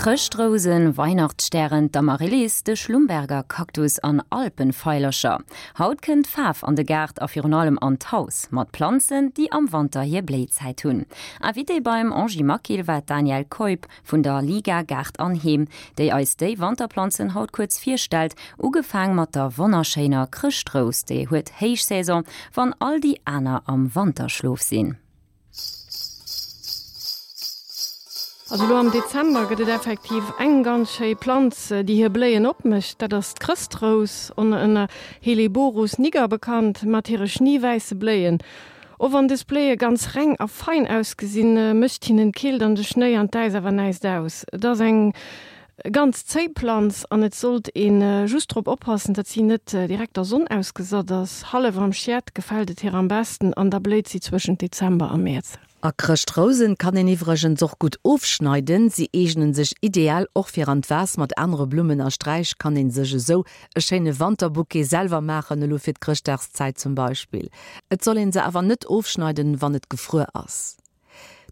Chrëschtrousen, Weihnachtsstären, d'Amaryllis, de Schlumberger Kaktus an Alpenveilercher. Haut kënnt Faarf an de Gaart a virun allem an d'Haus, mat Planzen, déi am Wanter hir Bléizäit hunn. Invitée beim Angie Maquil war d'Danièle Keup vun der Liga Gaart an Heem, déi eis déi Wanterplanzen haut kuerz virstellt, ugefaang mat der wonnerschéiner Chrëschtrous, déi huet Héichsaison, wann all déi aner am Wanterschlof sinn. Also elo am Dezember gëtt et effektiv eng ganz schéi Planz, déi hir Bléien opmécht. Dat ass d'Chrëschtrous, ënner Helleborus niger bekannt, mat hire schneewäisse Bléien. Och wann dës Bléie ganz reng a fein ausgesinn, mécht hinnen d'Keelt an de Schnéi an d'Äis awer näischt aus. Et ass eng ganz zéi Planz an et sollt ee just drop oppassen, datt si net direkt der Sonn ausgesat ass. Hallef am Schiet gefält et hir am besten an da bléit si zwëschent Dezember a Mäerz. A Chrëschtrousen kann een iwwregens och gutt ofschneiden. Si eegnen sech ideal och fir an d'Vas. Mat anere Blummen a Sträich kann een sech esou e schéine Wanterbouquet selwer maachen, elo fir d'Chrëschtdagszäit zum Beispill. Et soll een se awer net ofschneiden, wann et gefruer ass.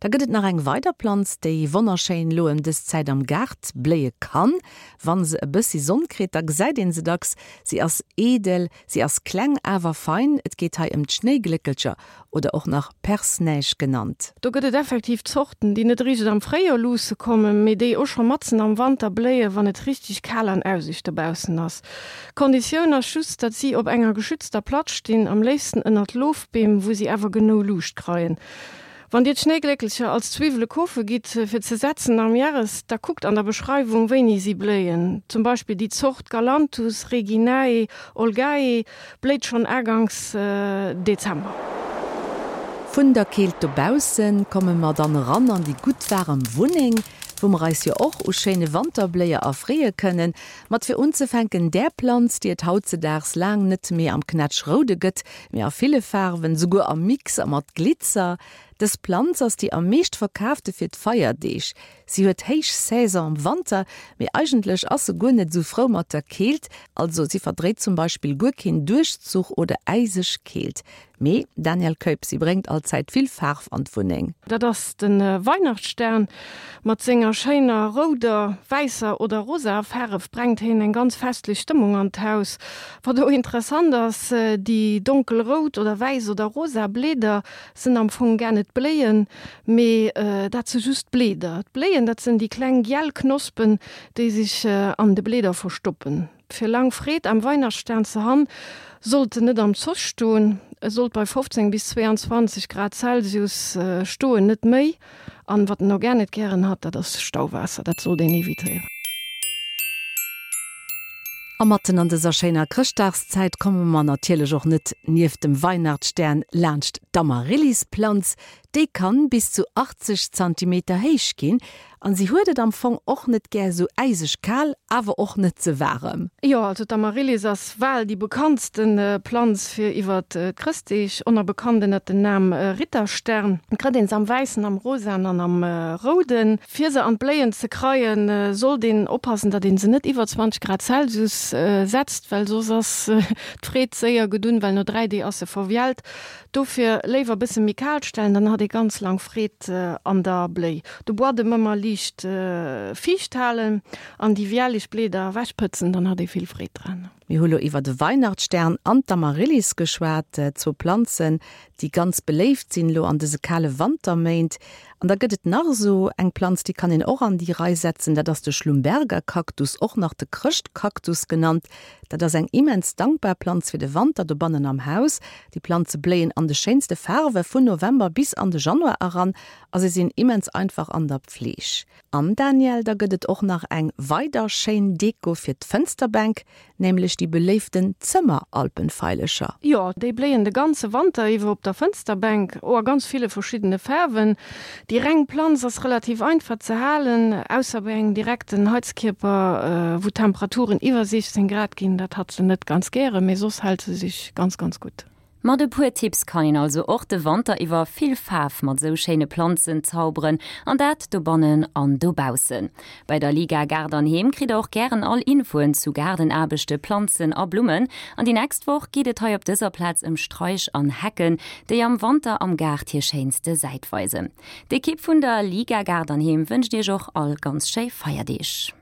Da gëtt et nach eng weider Planz, déi wonnerschéin elo ëm dës Zäit am Gaart bléie kann. Wann se e bëssi Sonn kritt, da gesäit een se dacks. Si ass eedel, si ass kleng awer fein. Et geet hei ëm d'Schnéigléckelcher oder och nach Perce-neige genannt. Do gëtt et effektiv Zorten, déi net eréischt am Fréijoer luusse kommen, mee déi och scho matzen am Wanter bléien, wann et richteg kal an äuseg dobaussen ass. D'Konditioun ass just, datt si op enger geschützter Platz stinn, am léifsten ënnert Lofbeem, wou si awer genou Luucht kreien. Wann dir d'Schnéigléckelcher als Zwiwwele kofe gitt fir ze setzen am Järres, da kuckt an der Beschreiwung wéini si bléien. Zum Beispill déi Zort Galanthus reginae olgae bléit schonn aganks Dezember. Vun der Keelt dobaussen komme mer dann eran an déi gutt waarem Wunneng, wou mer eis jo och u schéine Wanterbléier erfreeë kënnen. Mat fir unzefänken där Planz, déi et hautzedaags laang net méi am Knätschroude gëtt, mee a ville Faarwen, souguer am Mix a mat Glitzer. Dës Planz ass déi am meescht verkaafte fir d'Feierdeeg. Si huet héich Saison am Wanter, mee eigentlech ass se guer net esou frou mat der Keelt, also si verdréit zum Beispill guer keen Duerchzuch oder äiseg Keelt. Mee, Daniel Keup, si bréngt allzäit vill Faarf an d'Wunneng. Dat ass de Weihnachtsstern. Mat senger schéiner rouder, wäisser oder rosaer Faarf brengt heen eng ganz festlech Stëmmung an d'Haus. Wat och interessant ass, déi donkelrout oder wäiss oder rosa Bleeder sënn am Fong gar net Bléien, mee dat se just d'Bleeder. D'Bléien, dat sënn déi kleng giel Knospen, déi sech an de Bleeder verstoppen. Fir lang Freed am Weihnachtsstern ze han, sollt en net am Zoch stoen. E sollt bei 15 bis 22 Grad Celsius stoen, net méi. An wat en och gar net gären hat, dat ass Stauwaasser, dat sollt een evitéieren. A matten an dëser schéiner Chrëschtdagszäit komme mer natierlech och net nieft dem Weihnachtsstern laanscht d'Amaryllisplanz. Déi kann bis zu 80 Zantimeter héich ginn an si huet et am Fong och net gär sou äiseg kal, awer och net ze waarem. Jo, also d'Amaryllis ass bal déi bekanntsten Planz fir iwwert d'Chrëstdeeg, oner bekannt ënnert den Nam Ritterstern. Et krëtt een se am wäissen, am rosaen an am rouden. Fir se an d'Bléien ze kreien, sollt een oppassen, datt een se net iwwer 20 Grad Celsius setzt, well soss ass d'Freed séier gedunn, well no 3 Dee ass se verwiellt. Dofir léiwer bësse méi kal stellen, dann hat ee ganz lang Freed an der Bléi. De Buadem ëmmer liicht fiicht halen an déi wielleg Bleeder ewech pëtzen, dann hat ee vill Freed dran. Mir hu lo iwwer de Weihnachtsstern an d'Amaryllis geschwat, zwou Planzen, déi ganz beléift sinn elo an dëse kale Wanterméint. An da gëtt et nach esou eng Planz, déi kann een och an déi Rei setzen, dat ass de Schlumbergerkaktus, och nach de Chrëschtkaktus genannt. Dat ass eng immens dankbar Planz fir de Wanter dobannen am Haus. Déi Planze bléien an de schéinste Faarwe vun November bis an de Januar eran a se sinn immens einfach an der Pfleeg. An Danièle, da gëtt et och nach eng weider schéin Deko fir d'Fënsterbänk, nämlech déi beléiften Zëmmeralpenveilecher. Jo, déi bléien de ganze Wanter iwwer op der Fënsterbänk, o a ganz ville verschiddene Faarwen. Déi reng Planz ass relativ einfach ze halen, ausser bei engem direkten Heizkierper, wou d'Temperaturen iwwer 16 Grad ginn, dat hat se net ganz gären, mee soss hält se sech ganz, ganz gutt. Mat e puer Tipps kann een also och de Wanter iwwer vill Faarf mat esou schéine Planzen zauberen, an dat dobannen an dobaussen. Bei der Liga Gaart an Heem kritt der och gären all Infoen zu Gaardenaarbechte, Planzen a Blummen. An déi nächst Woch geet et hei op dëser Plaz ëm Straich an Hecken, déi am Wanter am Gaart hir schéinste Säit weisen. D'Ekipp vun der Liga Gaart an Heem wënscht iech och all ganz schéi Feierdeeg.